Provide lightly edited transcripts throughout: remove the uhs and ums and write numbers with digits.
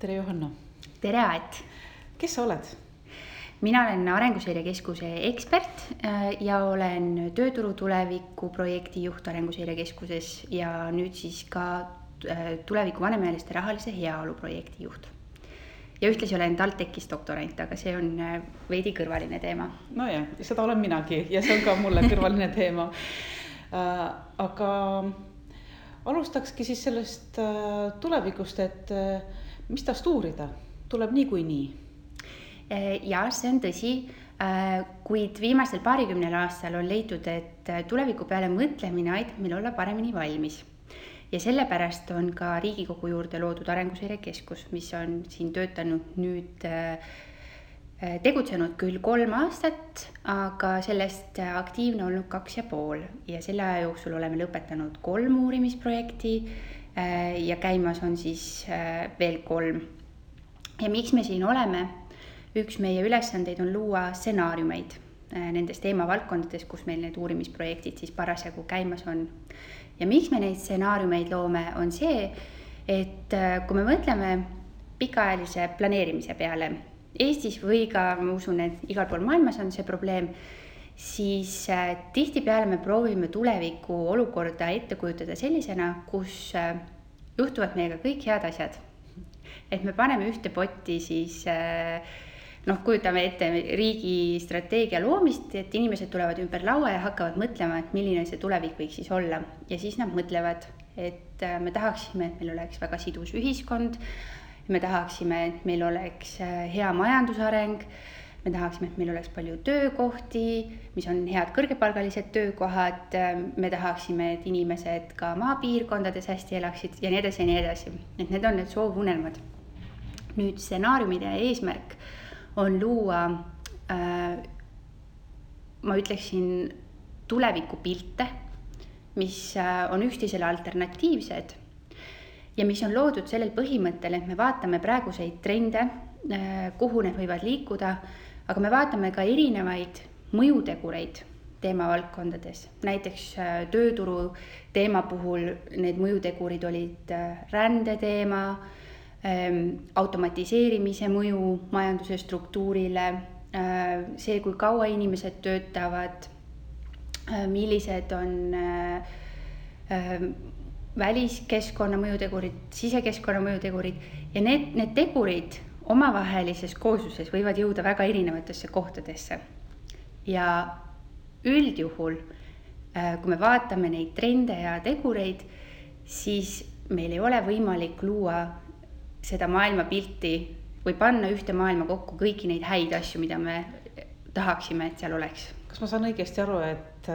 Tere Johanna. Tere Aet. Kes sa oled? Mina olen Arenguseire Keskuse ekspert ja olen tööturu tuleviku projekti juht Arenguseire Keskuses ja nüüd siis ka tuleviku vanemaealiste rahalise heaolu projekti juht. Ja ühtlasi olen TalTechis doktorant, aga see on veidi kõrvaline teema. No ja, seda olen minagi ja see on ka mulle kõrvaline teema. Aga alustakski siis sellest tulevikust, et mis tast uurida? Tuleb nii. Ja see on tõsi, kuid viimasel paarikümnel aastal on leitud, et tuleviku peale mõtlemine aitab meil olla paremini valmis. Ja sellepärast on ka Riigikogu juurde loodud Arenguseire Keskus, mis on siin töötanud nüüd tegutsenud küll 3 aastat, aga sellest aktiivne olnud 2,5 ja selle aja jooksul oleme lõpetanud 3 uurimisprojekti ja käimas on siis veel 3. Ja miks me siin oleme? Üks meie ülesandeid on luua stsenaariumeid nendes teemavaldkondades, kus meil need uurimisprojektid siis parasjagu käimas on. Ja miks me neid stsenaariumeid loome, on see, et kui me mõtleme pikaajalise planeerimise peale Eestis või ka, ma usun, et igal pool maailmas on see probleem, siis tihtipeale me proovime tuleviku olukorda ette kujutada sellisena, kus juhtuvad meiega kõik head asjad. Et me paneme ühte potti siis, kujutame ette riigi strateegia loomist, et inimesed tulevad ümber laua ja hakkavad mõtlema, et milline see tulevik võiks siis olla. Ja siis nad mõtlevad, et me tahaksime, et meil oleks väga sidus ühiskond, me tahaksime, et meil oleks hea majandusareng, me tahaksime, et meil oleks palju töökohti, mis on head kõrgepalgalised töökohad, me tahaksime, et inimesed ka maapiirkondades hästi elaksid ja nii edasi ja nii edasi. Et need on need soovunelmad. Nüüd stsenaariumide eesmärk on luua, ma ütleksin, tulevikupilte, mis on üksteisele alternatiivsed ja mis on loodud sellel põhimõttel, et me vaatame praeguseid trende, kuhu need võivad liikuda, aga me vaatame ka erinevaid mõjutegureid teemavaldkondades. Näiteks tööturu teema puhul need mõjutegurid olid rändeteema, automatiseerimise mõju majanduse struktuurile, see, kui kaua inimesed töötavad, millised on väliskeskkonna mõjutegurid, sisekeskkonna mõjutegurid ja need tegurid omavahelises koosluses võivad jõuda väga erinevatesse kohtadesse. Ja üldjuhul, kui me vaatame neid trende ja tegureid, siis meil ei ole võimalik luua seda maailmapilti või panna ühte maailma kokku kõiki neid häid asju, mida me tahaksime, et seal oleks. Kas ma saan õigesti aru, et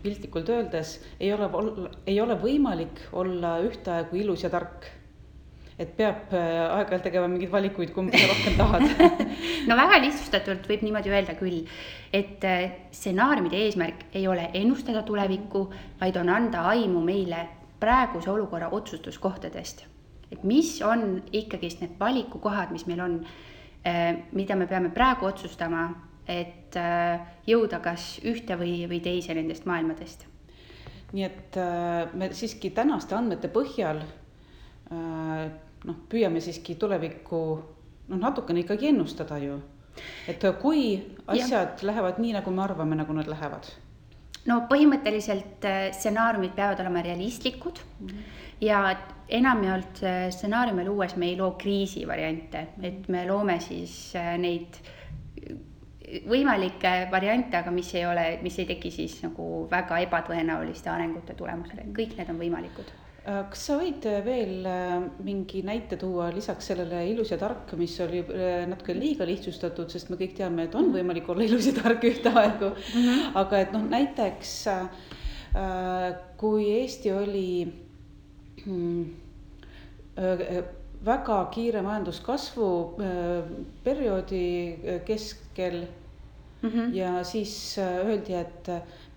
piltlikult öeldes ei ole võimalik olla ühtaegu ilus ja tark? Et peab aeg-ajalt tegema mingeid valikuid, kumba sa rohkem tahad? No väga lihtsustatult võib niimoodi öelda küll, et stsenaariumide eesmärk ei ole ennustada tulevikku, vaid on anda aimu meile praeguse olukorra otsustuskohtadest. Et mis on ikkagi need valikukohad, mis meil on, mida me peame praegu otsustama, et jõuda kas ühte või teise nendest maailmadest. Nii et me siiski tänaste andmete põhjal püüame siiski tulevikku natukene ikkagi ennustada ju. Et kui asjad lähevad nii, nagu me arvame, nagu nad lähevad? No põhimõtteliselt stsenaariumid peavad olema realistlikud ja enamjaolt stsenaariume luues me ei loo kriisi variante, et me loome siis neid võimalikke variante, aga mis ei teki siis nagu väga ebatõenäoliste arengute tulemusele. Kõik need on võimalikud. Kas sa võid veel mingi näite tuua lisaks sellele ilus ja tark, mis oli natuke liiga lihtsustatud, sest me kõik teame, et on võimalik olla ilus ja tark ühte aegu. Aga et näiteks kui Eesti oli väga kiire majanduskasvu perioodi keskel ja siis öeldi, et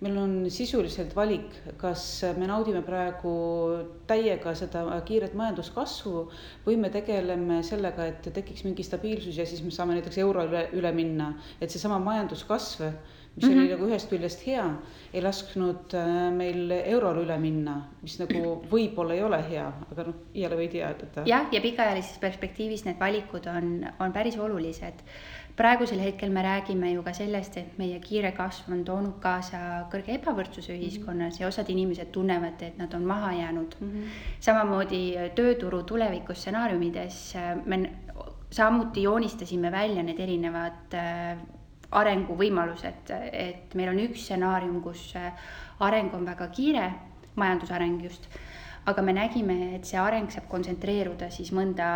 meil on sisuliselt valik, kas me naudime praegu täiega seda kiiret majanduskasvu või me tegeleme sellega, et tekiks mingi stabiilsus ja siis me saame näiteks euro üle minna. Et see sama majanduskasv, mis oli nagu ühest küljest hea, ei lasknud meil eurole üle minna, mis nagu võib-olla ei ole hea, aga jälle võid teada. Jah, ja pikaajalises perspektiivis need valikud on päris olulised. Praegusel hetkel me räägime ju ka sellest, et meie kiire kasv on toonud kaasa kõrge ebavõrdsuse ühiskonnas ja osad inimesed tunnevad, et nad on maha jäänud. Samamoodi tööturu tulevikus stsenaariumides me samuti joonistasime välja need erinevad arenguvõimalused, et meil on üks stsenaarium, kus areng on väga kiire, majandusareng just, aga me nägime, et see areng saab kontsentreeruda siis mõnda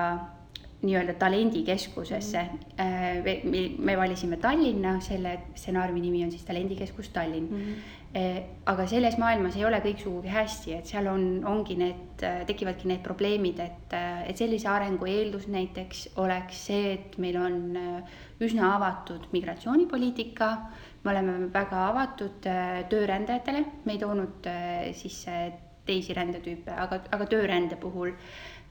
nii-öelda talendikeskusesse. Me valisime Tallinna, selle stsenaariumi nimi on siis Talendikeskus Tallinn. Aga selles maailmas ei ole kõik sugugi hästi, et seal tekivadki need probleemid, et sellise arengu eeldus näiteks oleks see, et meil on üsna avatud migratsioonipoliitika, me oleme väga avatud töörändajatele, me ei toonud sisse teisi rändetüüpe, aga töörände puhul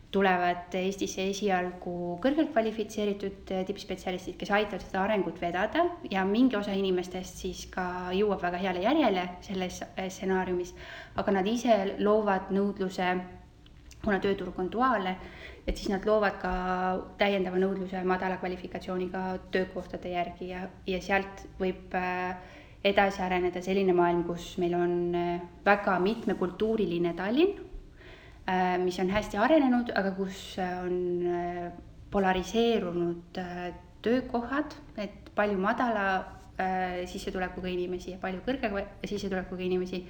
tulevad Eestisse esialgu kõrgelt kvalifitseeritud tippspetsialistid, kes aitavad seda arengut vedada ja mingi osa inimestest siis ka jõuab väga heale järjele selles stsenaariumis, aga nad ise loovad nõudluse, kuna tööturg on duaalne, et siis nad loovad ka täiendava nõudluse madala kvalifikatsiooniga töökohtade järgi ja sealt võib edasi areneda selline maailm, kus meil on väga mitmekultuuriline Tallinn, mis on hästi arenenud, aga kus on polariseerunud töökohad, et palju madala sissetulekuga inimesi ja palju kõrge sissetulekuga inimesi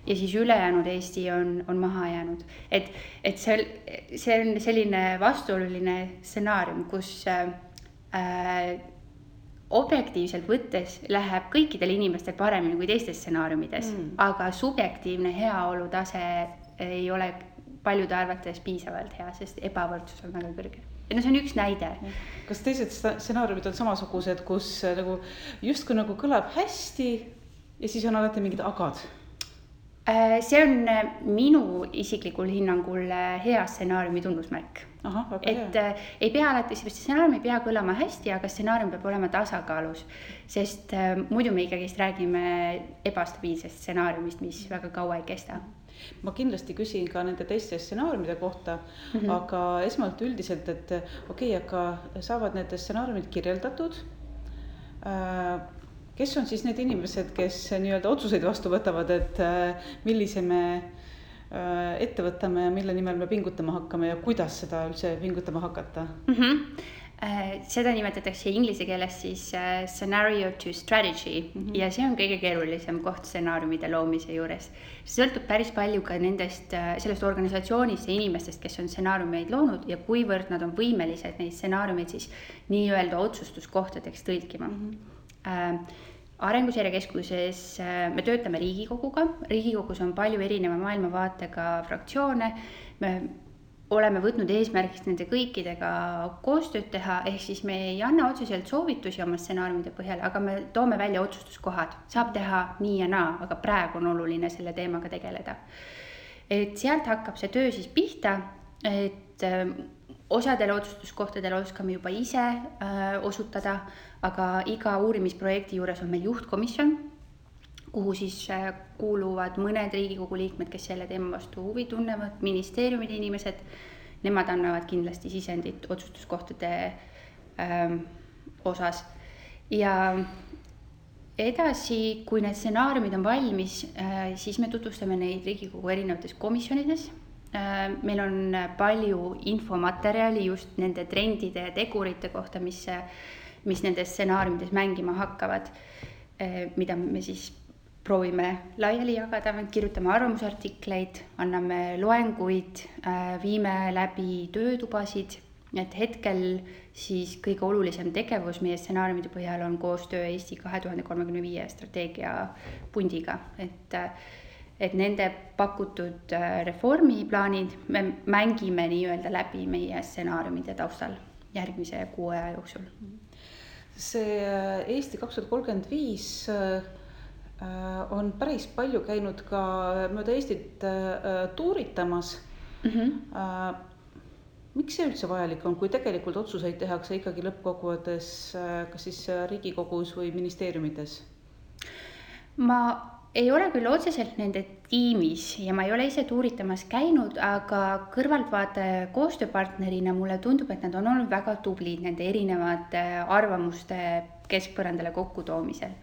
ja siis ülejäänud Eesti on maha jäänud. Et see on selline vastuoluline stsenaarium, kus objektiivselt võttes läheb kõikidel inimestel paremini kui teistes stsenaariumides, aga subjektiivne heaolu tase ei ole paljude arvates piisavalt hea, sest ebavõrdsus on väga kõrge. See on üks näide. Kas teised stsenaariumid on samasugused, kus nagu justkui nagu kõlab hästi ja siis on alati mingid agad? See on minu isiklikul hinnangul hea stsenaariumi tunnusmärk. Ei pea alati, stsenaarium ei pea kõlama hästi, aga stsenaarium peab olema tasakaalus, sest muidu me ikkagi räägime ebastabiilsest stsenaariumist, mis väga kaua ei kesta. Ma kindlasti küsin ka nende teiste stsenaariumide kohta, aga esmalt üldiselt, et aga saavad need stsenaariumid kirjeldatud. Kes on siis need inimesed, kes nii-öelda otsuseid vastu võtavad, et millise me ette võtame ja mille nimel me pingutama hakkame ja kuidas seda üldse pingutama hakata? Seda nimetatakse inglise keeles siis scenario to strategy ja see on kõige keerulisem koht stsenaariumide loomise juures. See sõltub päris palju ka sellest organisatsioonist ja inimestest, kes on stsenaariumeid loonud ja kuivõrd nad on võimelised neid stsenaariumeid siis nii-öelda otsustuskohtadeks tõlkima. Arenguseire Keskuses me töötame Riigikoguga. Riigikogus on palju erineva maailmavaatega fraktsioone. Me oleme võtnud eesmärgiks nende kõikidega koostööd teha, ehk siis me ei anna otseselt soovitusi oma stsenaariumide põhjal, aga me toome välja otsustuskohad. Saab teha nii ja naa, aga praegu on oluline selle teemaga tegeleda. Et sealt hakkab see töö siis pihta, et osadele otsustuskohtadele oskame juba ise osutada, aga iga uurimisprojekti juures on meil juhtkomisjon, kuhu siis kuuluvad mõned Riigikogu liikmed, kes selle teema vastu huvi tunnevad, ministeeriumide inimesed, nemad annavad kindlasti sisendit otsustuskohtade osas. Ja edasi, kui need stsenaariumid on valmis, siis me tutvustame neid Riigikogu erinevates komisjonides. Meil on palju infomaterjali just nende trendide ja tegurite kohta, mis nendes stsenaariumides mängima hakkavad, mida me siis proovime laiali jagada, kirjutame arvamusartikleid, anname loenguid, viime läbi töötubasid, et hetkel siis kõige olulisem tegevus meie stsenaariumide põhjal on koostöö Eesti 2035 strateegia pundiga, et nende pakutud reformiplaanid me mängime nii-öelda läbi meie stsenaariumide taustal järgmise 6 aja jooksul. See Eesti 2035 on päris palju käinud ka mööda Eestit tuuritamas. Miks see üldse vajalik on, kui tegelikult otsuseid tehakse ikkagi lõppkokkuvõttes kas siis Riigikogus või ministeeriumides? Ma ei ole küll otseselt nende tiimis ja ma ei ole ise tuuritamas käinud, aga kõrvaltvaataja koostööpartnerina mulle tundub, et nad on olnud väga tublid nende erinevate arvamuste keskpõrandale kokkutoomisel.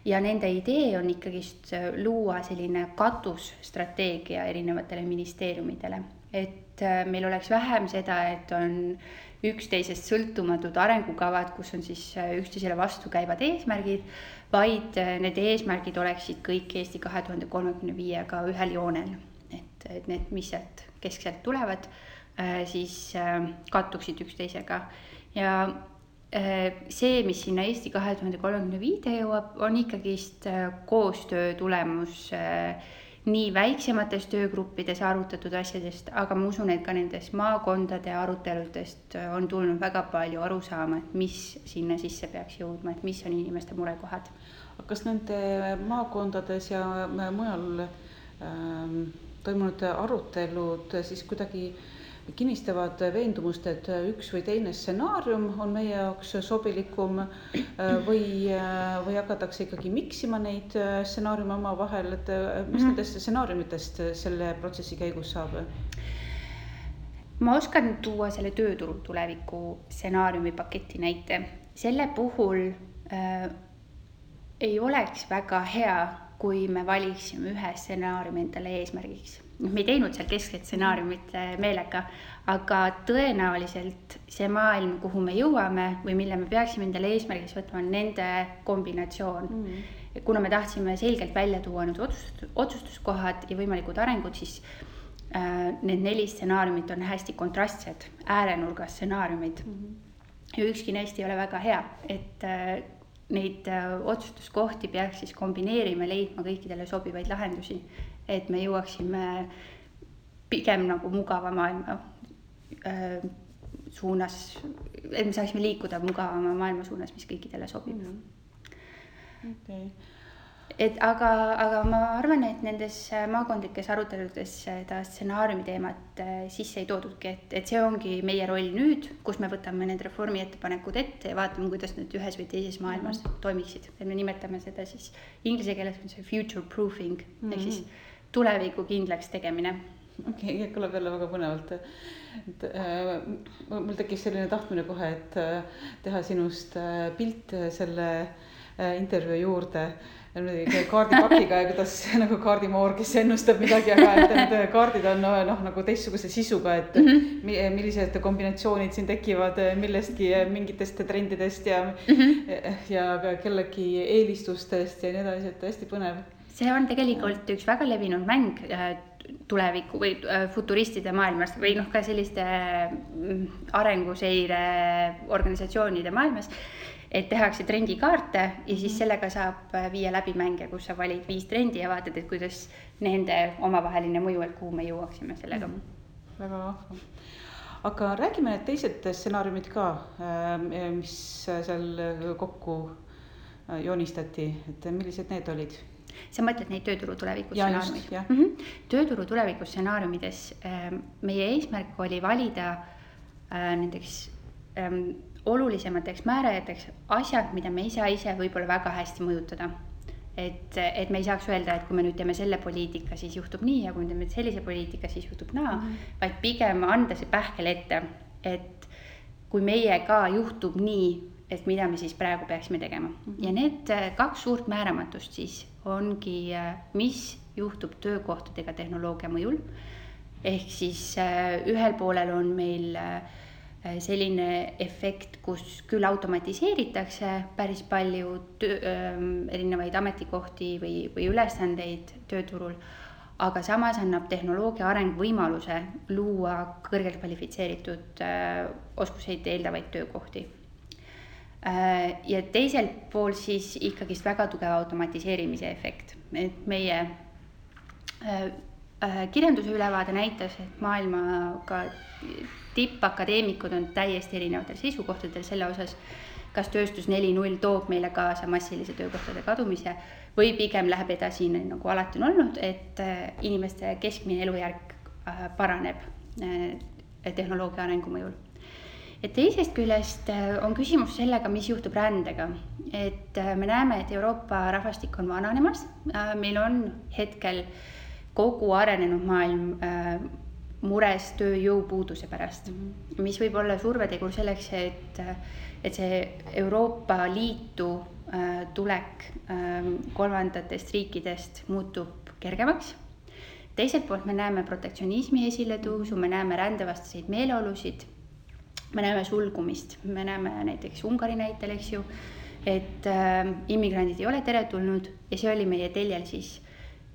Ja nende idee on ikkagist luua selline katusstrateegia erinevatele ministeeriumidele, et meil oleks vähem seda, et on üksteisest sõltumatud arengukavad, kus on siis üksteisele vastu käivad eesmärgid, vaid need eesmärgid oleksid kõik Eesti 2035-ga ühel joonel. Et need, mis sealt keskselt tulevad, siis kattuksid üksteisega. Ja see, mis sinna Eesti 2035 jõuab, on ikkagist koostöö tulemus nii väiksemates töögruppides arutatud asjadest, aga ma usun, et ka nendes maakondade aruteludest on tulnud väga palju arusaama, et mis sinna sisse peaks jõudma, et mis on inimeste murekohad. Kas nende maakondades ja mujal toimunud arutelud siis kuidagi kinnistavad veendumust, et üks või teine stsenaarium on meie jaoks sobilikum või hakatakse ikkagi miksima neid stsenaariume oma vahel, et mis nendest stsenaariumitest selle protsessi käigus saab? Ma oskan tuua selle tööturu tuleviku stsenaariumi paketi näite. Selle puhul ei oleks väga hea, kui me valiksime ühe stsenaariumi endale eesmärgiks. Me ei teinud seal keskset stsenaariumit meelega, aga tõenäoliselt see maailm, kuhu me jõuame või mille me peaksime endale eesmärgiks võtma, on nende kombinatsioon. Kuna me tahtsime selgelt välja tuua nüüd otsustuskohad ja võimalikud arengud, siis need 4 stsenaariumit on hästi kontrastsed, äärenurgas stsenaariumid. Ja ükski neist ei ole väga hea, et neid otsustuskohti peaks siis kombineerima, leidma kõikidele sobivaid lahendusi, et me jõuaksime pigem nagu mugava maailma suunas, et me saaksime liikuda mugavama maailma suunas, mis kõikidele sobib. Okay. Aga ma arvan, et nendes maakondlikes aruteludes seda stsenaariumi teemat sisse ei toodudki, et see ongi meie roll nüüd, kus me võtame need reformi ettepanekud ette ja vaatame, kuidas need ühes või teises maailmas toimiksid. Et me nimetame seda siis inglise keeles on see future proofing, ehk siis tuleviku kindlaks tegemine. Okei, kõlab jälle väga põnevalt. Mul tekkis selline tahtmine kohe, et teha sinust pilt selle intervjuu juurde kaardipakiga ja kuidas nagu kaardimoor, kes ennustab midagi, aga et need kaardid on nagu teistsuguse sisuga, et millised kombinatsioonid siin tekivad millestki mingitest trendidest ja kellegi eelistustest ja nii edasi, et hästi põnev. See on tegelikult üks väga levinud mäng tuleviku või futuristide maailmas või ka selliste arenguseire organisatsioonide maailmas, et tehakse trendikaarte ja siis sellega saab viia läbi mänge, kus sa valid 5 trendi ja vaatad, et kuidas nende omavaheline mõju, et kuhu me jõuaksime sellega. Väga vahva. Aga räägime need teised stsenaariumid ka, mis seal kokku joonistati, et millised need olid? Sa mõtled neid tööturu tuleviku stsenaariumid? Tööturu tuleviku stsenaariumides meie eesmärk oli valida nendeks olulisemateks määrajateks asjad, mida me ise võib-olla väga hästi mõjutada. Et me ei saaks öelda, et kui me nüüd teeme selle poliitika, siis juhtub nii ja kui me teeme sellise poliitika, siis juhtub naa, vaid pigem anda see pähkel ette, et kui meie ka juhtub nii, et mida me siis praegu peaksime tegema. Ja need 2 suurt määramatust siis ongi, mis juhtub töökohtadega tehnoloogia mõjul. Ehk siis ühel poolel on meil selline efekt, kus küll automatiseeritakse päris palju erinevaid ametikohti või ülesandeid tööturul, aga samas annab tehnoloogia areng võimaluse luua kõrgelt kvalifitseeritud oskuseid eeldavaid töökohti. Ja teiselt pool siis ikkagist väga tugeva automatiseerimise efekt. Et meie kirjanduse ülevaade näitas, et maailmaga tippakadeemikud on täiesti erinevatel seisukohtadel selle osas, kas tööstus 4.0 toob meile kaasa massilise töökohtade kadumise või pigem läheb edasi nagu alati on olnud, et inimeste keskmine elujärg paraneb tehnoloogia arengu mõjul. et teisest küljest on küsimus sellega, mis juhtub rändega. Et me näeme, et Euroopa rahvastik on vananemas. Meil on hetkel kogu arenenud maailm mures tööjõupuuduse pärast, mis võib olla survetegur selleks, et see Euroopa Liitu tulek kolmandatest riikidest muutub kergemaks. Teiselt poolt me näeme protektsionismi esiletõusu, me näeme rändevastaseid meeleolusid, me näeme sulgumist, me näeme näiteks Ungari näitel, eks ju, et immigrandid ei ole teretulnud ja see oli meie teljel siis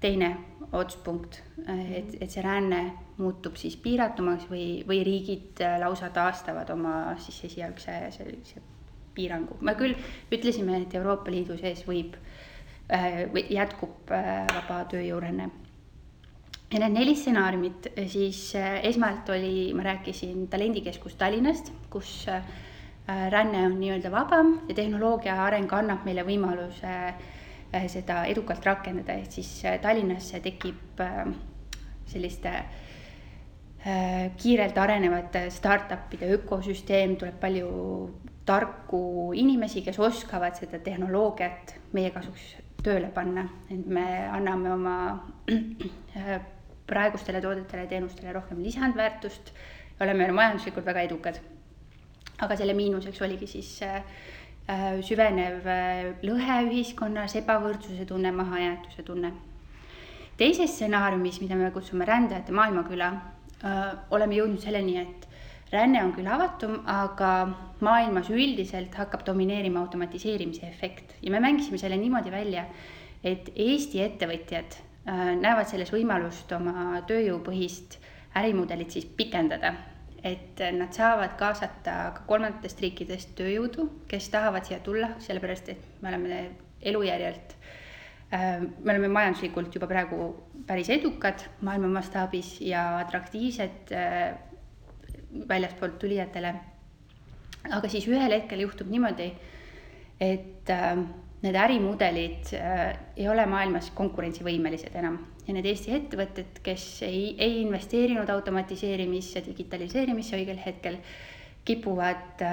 teine otspunkt, et see ränne muutub siis piiratumaks või riigid lausa taastavad oma siis esialgse sellise piirangu. Me küll ütlesime, et Euroopa Liidu sees jätkub vaba tööjõuränne. Ja need 4 stsenaariumid, siis esmalt ma rääkisin talendikeskus Tallinnast, kus ränne on nii-öelda vabam ja tehnoloogia areng annab meile võimaluse seda edukalt rakendada, et siis Tallinnasse tekib selliste kiirelt arenevate startupide ökosüsteem, tuleb palju tarku inimesi, kes oskavad seda tehnoloogiat meie kasuks tööle panna, et me anname oma praegustele toodetele ja teenustele rohkem lisandväärtust ja oleme majanduslikult väga edukad. Aga selle miinuseks oligi siis süvenev lõhe ühiskonnas, ebavõrdsuse tunne, mahajäetuse tunne. Teises stsenaariumis, mida me kutsume rändajate maailmaküla, oleme jõudnud selleni, et ränne on küll avatum, aga maailmas üldiselt hakkab domineerima automatiseerimise efekt. Ja me mängisime selle niimoodi välja, et Eesti ettevõtjad näevad selles võimalust oma tööjõupõhist ärimudelit siis pikendada, et nad saavad kaasata ka kolmandatest riikidest tööjõudu, kes tahavad siia tulla, sellepärast et me oleme elujärjelt, me oleme majanduslikult juba praegu päris edukad maailma mastaabis ja atraktiivsed väljaspoolt tulijatele. Aga siis ühel hetkel juhtub niimoodi, et need ärimudelid ei ole maailmas konkurentsivõimelised enam ja need Eesti ettevõtted, kes ei investeerinud automatiseerimisse, digitaliseerimisse õigel hetkel, kipuvad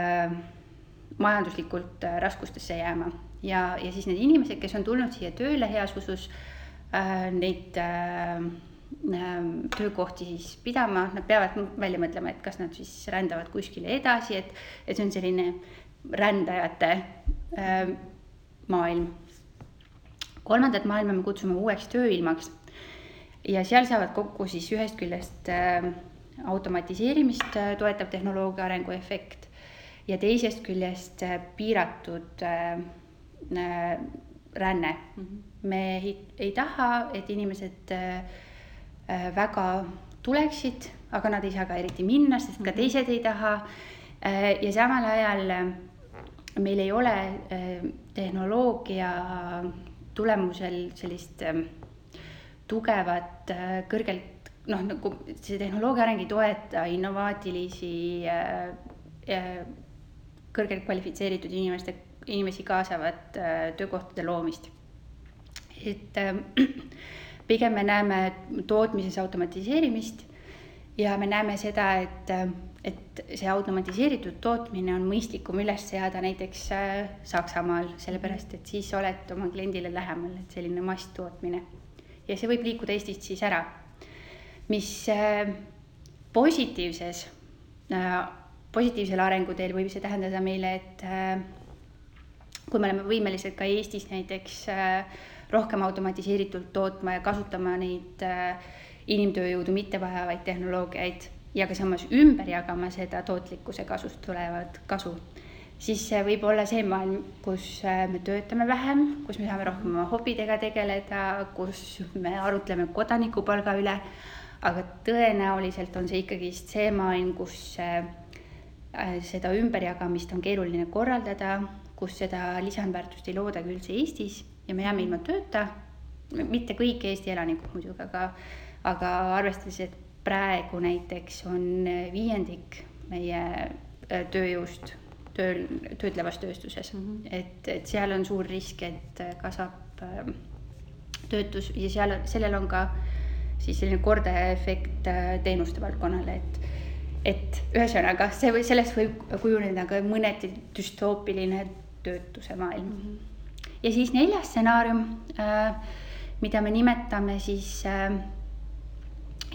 majanduslikult raskustesse jääma ja siis need inimesed, kes on tulnud siia tööle heas usus neid töökohti siis pidama, nad peavad välja mõtlema, et kas nad siis rändavad kuskile edasi, et see on selline rändajate maailm. Kolmandat maailma me kutsume uueks tööilmaks ja seal saavad kokku siis ühest küljest automatiseerimist toetav tehnoloogia arengu efekt ja teisest küljest piiratud ränne. Me ei taha, et inimesed väga tuleksid, aga nad ei saa ka eriti minna, sest ka teised ei taha ja samal ajal meil ei ole tehnoloogia tulemusel sellist tugevat, kõrgelt, nagu see tehnoloogia areng ei toeta innovaatilisi, kõrgelt kvalifitseeritud inimesi kaasavat töökohtade loomist. Et pigem me näeme tootmises automatiseerimist ja me näeme seda, et see automatiseeritud tootmine on mõistlikum üles seada näiteks Saksamaal, sellepärast et siis oled oma kliendile lähemal, et selline masstootmine. Ja see võib liikuda Eestist siis ära, mis positiivsel arenguteel võib see tähendada meile, et kui me oleme võimelised ka Eestis näiteks rohkem automatiseeritult tootma ja kasutama neid inimtööjõudu mitte vajavaid tehnoloogiaid ja ka samas ümber jagama seda tootlikkuse kasust tulevad kasu, siis see võib olla see maailm, kus me töötame vähem, kus me saame rohkem oma hobidega tegeleda, kus me arutleme kodanikupalga üle, aga tõenäoliselt on see ikkagi see maailm, kus seda ümberjagamist on keeruline korraldada, kus seda lisandväärtust ei looda küll see Eestis ja me jääme ilma tööta, mitte kõik Eesti elanikud muidugi, aga arvestades, et praegu näiteks on 5% meie tööjõust töötlevas tööstuses, et seal on suur risk, et kasvab töötus ja sellel on ka siis selline kordaja efekt teenuste valdkonnale, et ühesõnaga, sellest võib kujuneda ka mõneti düstoopiline töötuse maailm. Ja siis 4. stsenaarium, mida me nimetame siis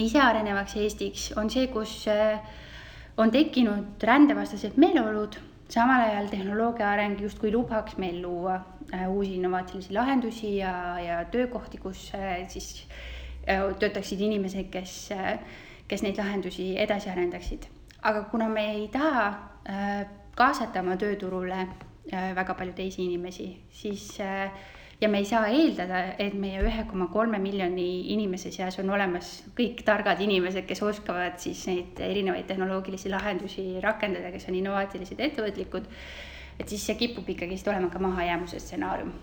isearenevaks Eestiks, on see, kus on tekkinud rändevastased meeleolud, samal ajal tehnoloogia areng justkui lubaks meil luua uusi innovaatilisi lahendusi ja töökohti, kus siis töötaksid inimesed, kes neid lahendusi edasi arendaksid. Aga kuna me ei taha kaasata oma tööturule väga palju teisi inimesi, siis ja me ei saa eeldada, et meie 1,3 miljoni inimese seas on olemas kõik targad inimesed, kes oskavad siis neid erinevaid tehnoloogilisi lahendusi rakendada, kes on innovaatilised ettevõtlikud, et siis see kipub ikkagi olema ka mahajäämuse stsenaarium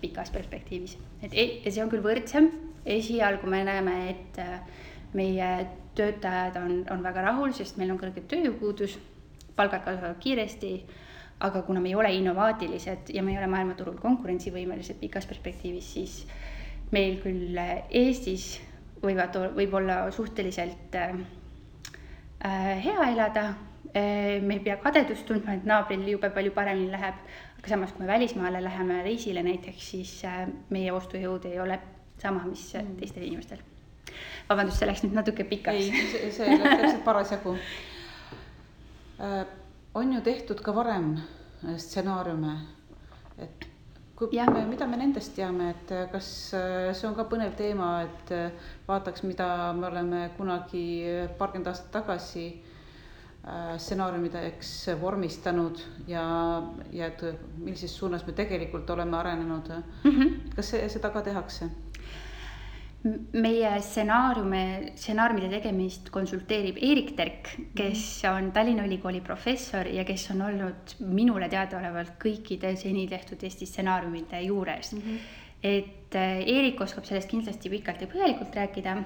pikas perspektiivis. Ja see on küll võrdsem. Esialgu me näeme, et meie töötajad on väga rahul, sest meil on kõrge tööjõupuudus, palgad kasvavad kiiresti, aga kuna me ei ole innovaatilised ja me ei ole maailmaturul konkurentsivõimelised pikas perspektiivis, siis meil küll Eestis võib olla suhteliselt hea elada. Me ei pea kadedust tundma, et naabril jube palju paremini läheb, aga samas kui me välismaale läheme reisile näiteks, siis meie ostujõud ei ole sama, mis teistel inimestel. Vabandust, see läks nüüd natuke pikaks. Ei, see läks täpselt parasjagu. On ju tehtud ka varem stsenaariume, et mida me nendest teame, et kas see on ka põnev teema, et vaataks, mida me oleme kunagi paarkümmend aastat tagasi stsenaariumideks vormistanud ja et millises suunas me tegelikult oleme arenenud. Kas seda ka tehakse? Meie stsenaariumide tegemist konsulteerib Erik Terk, kes on Tallinna Ülikooli professor ja kes on olnud minule teadaolevalt kõikide seni tehtud Eesti stsenaariumide juures. Et Erik oskab sellest kindlasti pikalt ja põhjalikult rääkida.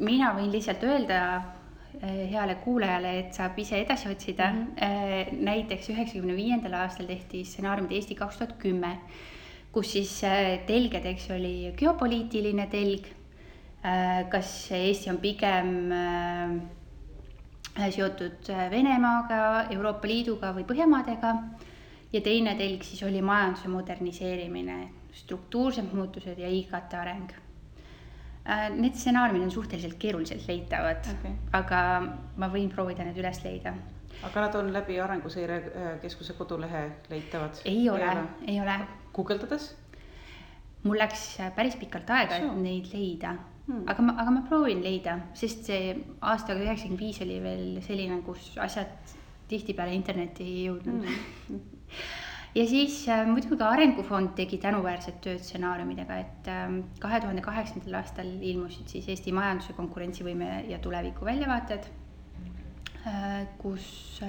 Mina võin lihtsalt öelda heale kuulajale, et saab ise edasi otsida. Näiteks 1995. aastal tehti stsenaariumid Eesti 2010, kus siis telgedeks oli geopoliitiline telg, kas Eesti on pigem seotud Venemaaga, Euroopa Liiduga või Põhjamaadega, ja teine telg siis oli majanduse moderniseerimine, struktuursed muutused ja IKT areng. Need stsenaariumid on suhteliselt keeruliselt leitavad, aga ma võin proovida need üles leida. Aga nad on läbi Arenguseire Keskuse kodulehe leitavad? Ei ole. Guugeldades? Mul läks päris pikalt aega, et neid leida. Aga ma proovin leida, sest see aastaga 1995 oli veel selline, kus asjad tihtipeale interneti ei jõudnud. Ja siis muidugi ka Arengufond tegi tänuväärset tööd stsenaariumidega, et 2008. aastal ilmusid siis Eesti majanduse konkurentsivõime ja tuleviku väljavaated, kus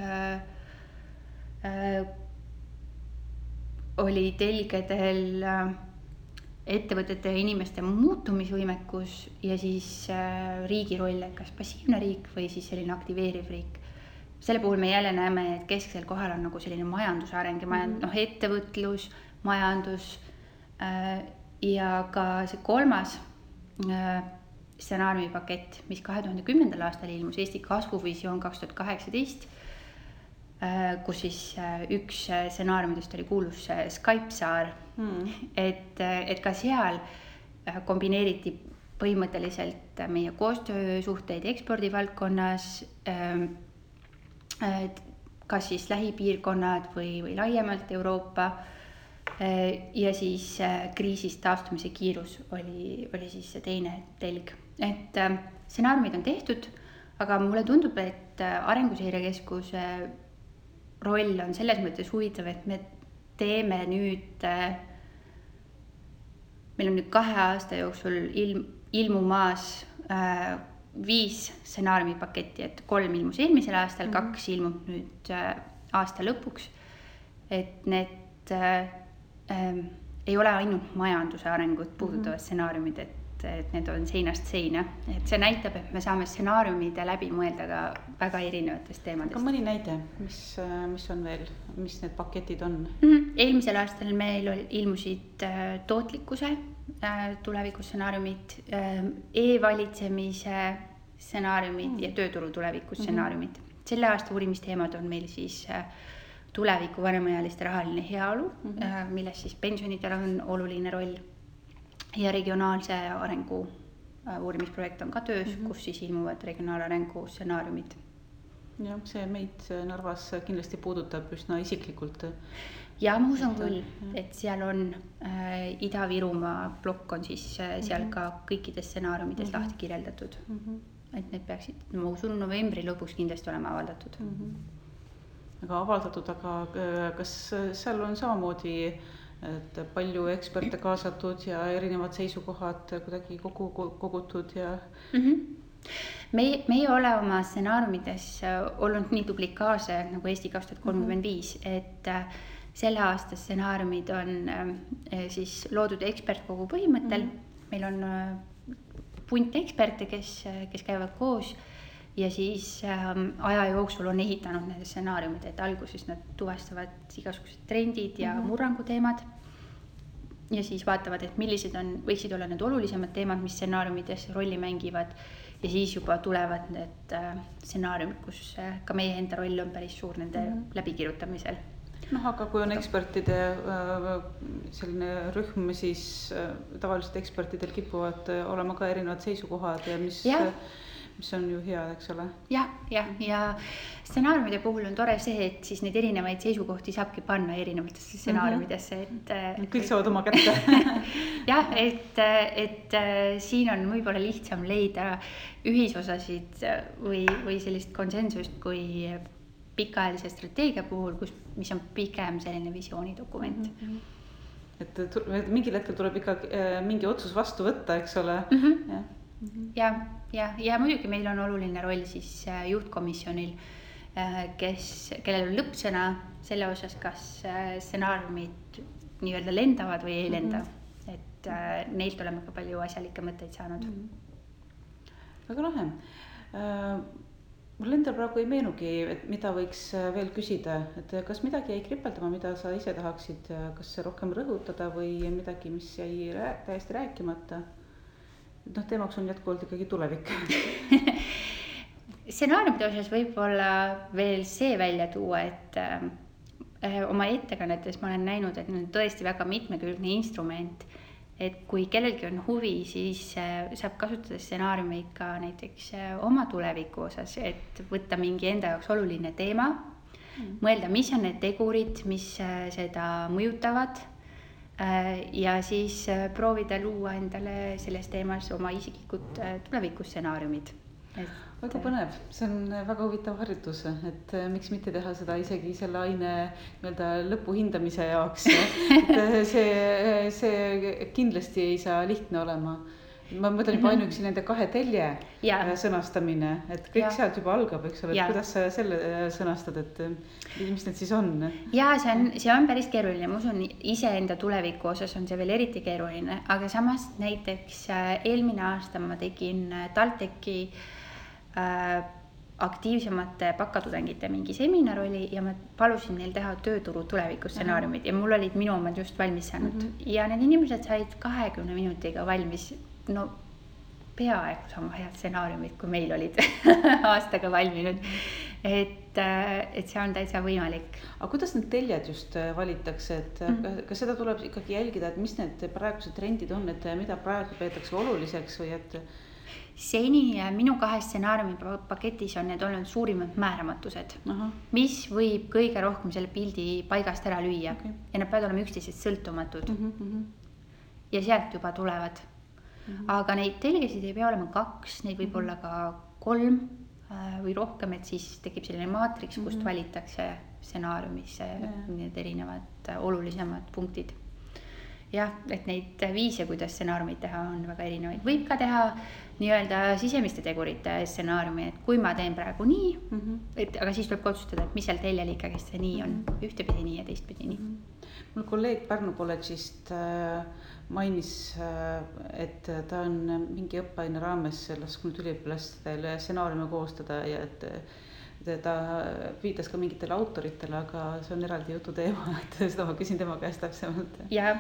oli telgedel ettevõtete ja inimeste muutumisvõimekus ja siis riigi roll, kas passiivne riik või siis selline aktiveeriv riik. Selle puhul me jälle näeme, et kesksel kohal on nagu selline majanduse areng ja ettevõtlus, majandus ja ka see kolmas stsenaariumipakett, mis 2010. aastal ilmus, Eesti kasvuvisioon 2018, kus siis üks stsenaariumidest oli kuulus Skype-saar, et ka seal kombineeriti põhimõtteliselt meie koostöösuhteid ekspordivaldkonnas, kas siis lähipiirkonnad või laiemalt Euroopa, ja siis kriisist taastumise kiirus oli siis see teine telg. Et stsenaariumid on tehtud, aga mulle tundub, et Arenguseire Keskuse roll on selles mõttes huvitav, et me teeme nüüd, meil on nüüd 2 aasta jooksul ilmumaas 5 stsenaariumipaketti, et 3 ilmus eelmisel aastal, 2 ilmub nüüd aasta lõpuks, et need ei ole ainult majanduse arengut puudutavad stsenaariumid, et need on seinast seina, et see näitab, et me saame stsenaariumide läbi mõelda ka väga erinevatest teemadest. Aga mõni näide, mis on veel, mis need paketid on? Eelmisel aastal meil ilmusid tootlikkuse tulevikustsenaariumid, e-valitsemise stsenaariumid ja tööturu tuleviku stsenaariumid. Selle aasta uurimisteemad on meil siis tuleviku vanemaealiste rahaline heaolu, milles siis pensionidel on oluline roll ja regionaalse arengu uurimisprojekt on ka töös, kus siis ilmuvad regionaalarengu stsenaariumid. Jah, see meid Narvas kindlasti puudutab üsna isiklikult. Ja ma usun küll, et seal on Ida-Virumaa plokk on siis seal ka kõikides stsenaariumides lahti kirjeldatud. Et need peaksid, ma usun, novembri lõpuks kindlasti olema avaldatud. Aga avaldatud, aga kas seal on samamoodi, et palju eksperte kaasatud ja erinevad seisukohad kuidagi kogutud ja... Meie ei ole oma stsenaariumides olnud nii duplikaarse nagu Eesti 2035, et selle aasta stsenaariumid on siis loodud ekspertkogu põhimõttel. Meil on punt eksperte, kes käivad koos ja siis aja jooksul on ehitanud need stsenaariumid, et alguses nad tuvastavad igasugused trendid ja murranguteemad ja siis vaatavad, et millised võiksid olla need olulisemad teemad, mis stsenaariumides rolli mängivad ja siis juba tulevad need stsenaariumid, kus ka meie enda roll on päris suur nende läbikirjutamisel. Aga kui on ekspertide selline rühm, siis tavaliselt ekspertidel kipuvad olema ka erinevad seisukohad ja mis on ju hea, eks ole? Ja stsenaariumide puhul on tore see, et siis neid erinevaid seisukohti saabki panna erinevatesse stsenaariumidesse. Kõik saavad oma kätte. Jah, et siin on võib-olla lihtsam leida ühisosasid või sellist konsensust kui pikaajalise strateegia puhul, mis on pigem selline visioonidokument. Et mingil hetkel tuleb ikka mingi otsus vastu võtta, eks ole? Ja muidugi meil on oluline roll siis juhtkomisjonil, kellel on lõppsõna selle osas, kas stsenaariumid nii-öelda lendavad või ei lenda. Et neilt oleme ka palju asjalikke mõtteid saanud. Väga lahe. Mul endal praegu ei meenugi, et mida võiks veel küsida, et kas midagi jäi kripeldama, mida sa ise tahaksid, kas rohkem rõhutada või midagi, mis jäi täiesti rääkimata? Teemaks on jätkuvalt ikkagi tulevik. Stsenaariumide osas võib-olla veel see välja tuua, et oma ettekannetes ma olen näinud, et on tõesti väga mitmekülgne instrument, et kui kellelgi on huvi, siis saab kasutada stsenaariumi ka näiteks oma tuleviku osas, et võtta mingi enda jaoks oluline teema, mõelda, mis on need tegurid, mis seda mõjutavad ja siis proovida luua endale selles teemas oma isiklikud tulevikustsenaariumid. Väga põnev, see on väga huvitav harjutus, et miks mitte teha seda isegi selle aine lõpu hindamise jaoks. See kindlasti ei saa lihtne olema. Ma mõtlen juba ainuüksi nende 2 telje sõnastamine, et kõik sealt juba algab, eks ole, et kuidas sa selle sõnastad, et mis need siis on? Ja see on päris keeruline, ma usun iseenda tuleviku osas on see veel eriti keeruline, aga samas näiteks eelmine aasta ma tegin TalTechi aktiivsemate bakatudengite mingi seminar oli ja ma palusin neil teha tööturu tulevikustsenaariumid ja mul olid minu omad just valmis saanud ja need inimesed said 20 minutiga valmis, no peaaegu sama head stsenaariumid, kui meil olid aastaga valminud, et see on täitsa võimalik. Aga kuidas need teljed just valitakse, et kas seda tuleb ikkagi jälgida, et mis need praegused trendid on, et mida praegu peetakse oluliseks või et seni minu 2 stsenaariumi paketis on need olnud suurimad määramatused, mis võib kõige rohkem selle pildi paigast ära lüüa ja nad peavad olema üksteisest sõltumatud ja sealt juba tulevad. Aga neid telgesid ei pea olema 2, neid võib olla ka 3 või rohkem, et siis tekib selline maatriks, kust valitakse stsenaariumisse need erinevad olulisemad punktid. Jah, et neid viise, kuidas stsenaariumid teha, on väga erinevaid. Võib ka teha nii-öelda sisemiste tegurite stsenaariumi, et kui ma teen praegu nii, aga siis tuleb otsustada, et mis seal teljel ikkagi see nii on, ühtepidi nii ja teistpidi nii. Mul kolleeg Pärnu kolledžist mainis, et ta on mingi õppeaine raames lasknud üliõpilastele stsenaariume koostada ja et ta viitas ka mingitele autoritele, aga see on eraldi jutu teema, et seda ma küsin tema käest täpsemalt. Ja.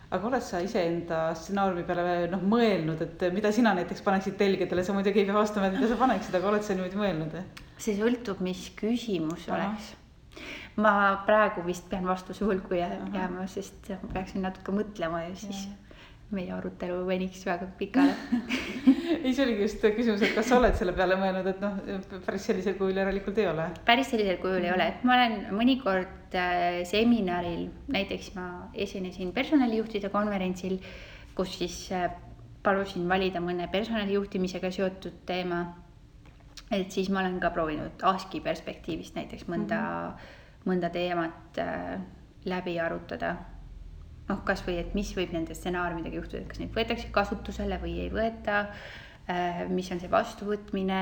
aga oled sa iseenda stsenaariumi peale mõelnud, et mida sina näiteks paneksid telgedele, sa muidugi ei pea vastama, et mida sa paneksid, aga oled sa niimoodi mõelnud? See sõltub, mis küsimus oleks. Ma praegu vist pean vastuse hulku jääma, sest ma peaksin natuke mõtlema ja siis meie arutelu veniks väga pikale. Ei, see oligi just küsimus, et kas sa oled selle peale mõelnud, et päris sellisel kujul järelikult ei ole? Päris sellisel kujul ei ole, et ma olen mõnikord seminaril, näiteks ma esinesin personalijuhtide konverentsil, kus siis palusin valida mõne personalijuhtimisega seotud teema. Et siis ma olen ka proovinud ASKi perspektiivist näiteks mõnda teemat läbi arutada. Kas või, et mis võib nende stsenaariumidega juhtuda, et kas neid võetakse kasutusele või ei võeta, mis on see vastuvõtmine,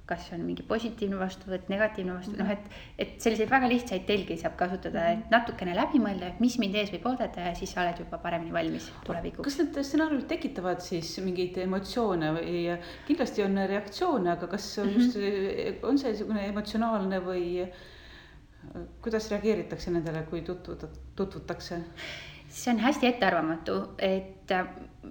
kas on mingi positiivne vastuvõtt, negatiivne vastuvõtt, et selliseid väga lihtsaid telgi saab kasutada, et natukene läbi mõelda, mis mind ees võib oodata ja siis sa oled juba paremini valmis tulevikuks. Kas need stsenaariumid tekitavad siis mingeid emotsioone või kindlasti on reaktsioone, aga kas just on see emotsionaalne või kuidas reageeritakse nendele, kui tutvutakse? See on hästi ettearvamatu, et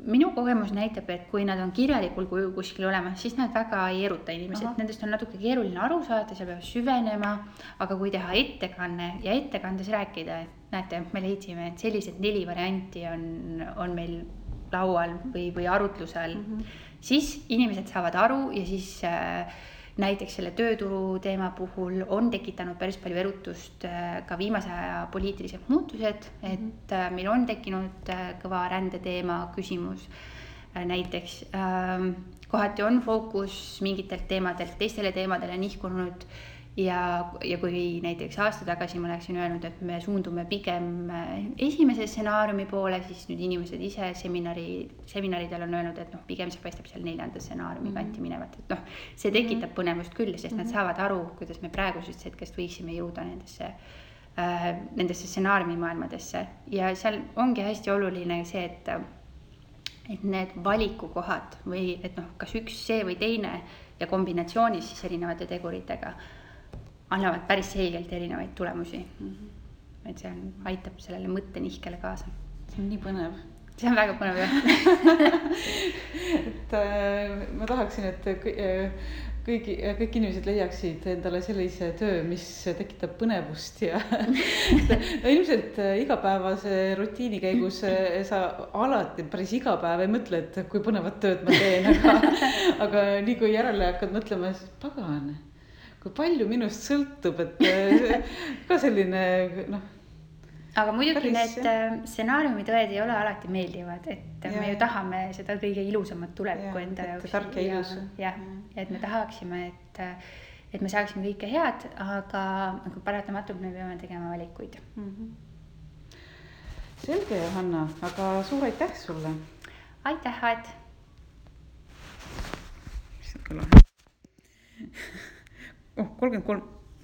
minu kogemus näitab, et kui nad on kirjalikul kujul kuskil olemas, siis nad väga ei eruta inimesed. Nendest on natuke keeruline aru saada, seal peab süvenema, aga kui teha ettekanne ja ettekandes rääkida, et näete, me leidsime, et sellised 4 varianti on meil laual või arutlusel, siis inimesed saavad aru ja siis näiteks selle tööturu teema puhul on tekitanud päris palju erutust ka viimase aja poliitilised muutused, et meil on tekkinud kõva rändeteema küsimus. Näiteks kohati on fookus mingitelt teemadelt teistele teemadele nihkunud ja kui näiteks aasta tagasi ma oleksin öelnud, et me suundume pigem esimese stsenaariumi poole, siis nüüd inimesed ise seminaridel on öelnud, et pigem see paistab seal 4. stsenaariumi kanti minevat, et see tekitab põnevust küll, sest nad saavad aru, kuidas me praegusest hetkest võiksime jõuda nendesse stsenaariumi maailmadesse ja seal ongi hästi oluline see, et need valikukohad või et kas üks see või teine ja kombinatsioonis siis erinevate teguritega annavad päris selgelt erinevaid tulemusi. Et see aitab sellele mõttenihkele kaasa. See on nii põnev. See on väga põnev, jah. Et ma tahaksin, et kõik inimesed leiaksid endale sellise töö, mis tekitab põnevust ja ilmselt igapäevase rutiini käigus sa alati päris iga päev ei mõtle, et kui põnevat tööd ma teen, aga nii kui järele hakkad mõtlema, siis pagan, kui palju minust sõltub, et ka selline Aga muidugi need stsenaariumid ei ole alati meeldivad, et me ju tahame seda kõige ilusamat tulevikku enda jaoks. Tark ja ilus. Ja, et me tahaksime, et me saaksime kõike head, aga paratamatult me peame tegema valikuid. Selge, Johanna, aga suur aitäh sulle. Aitäh, Aet. Oh, 33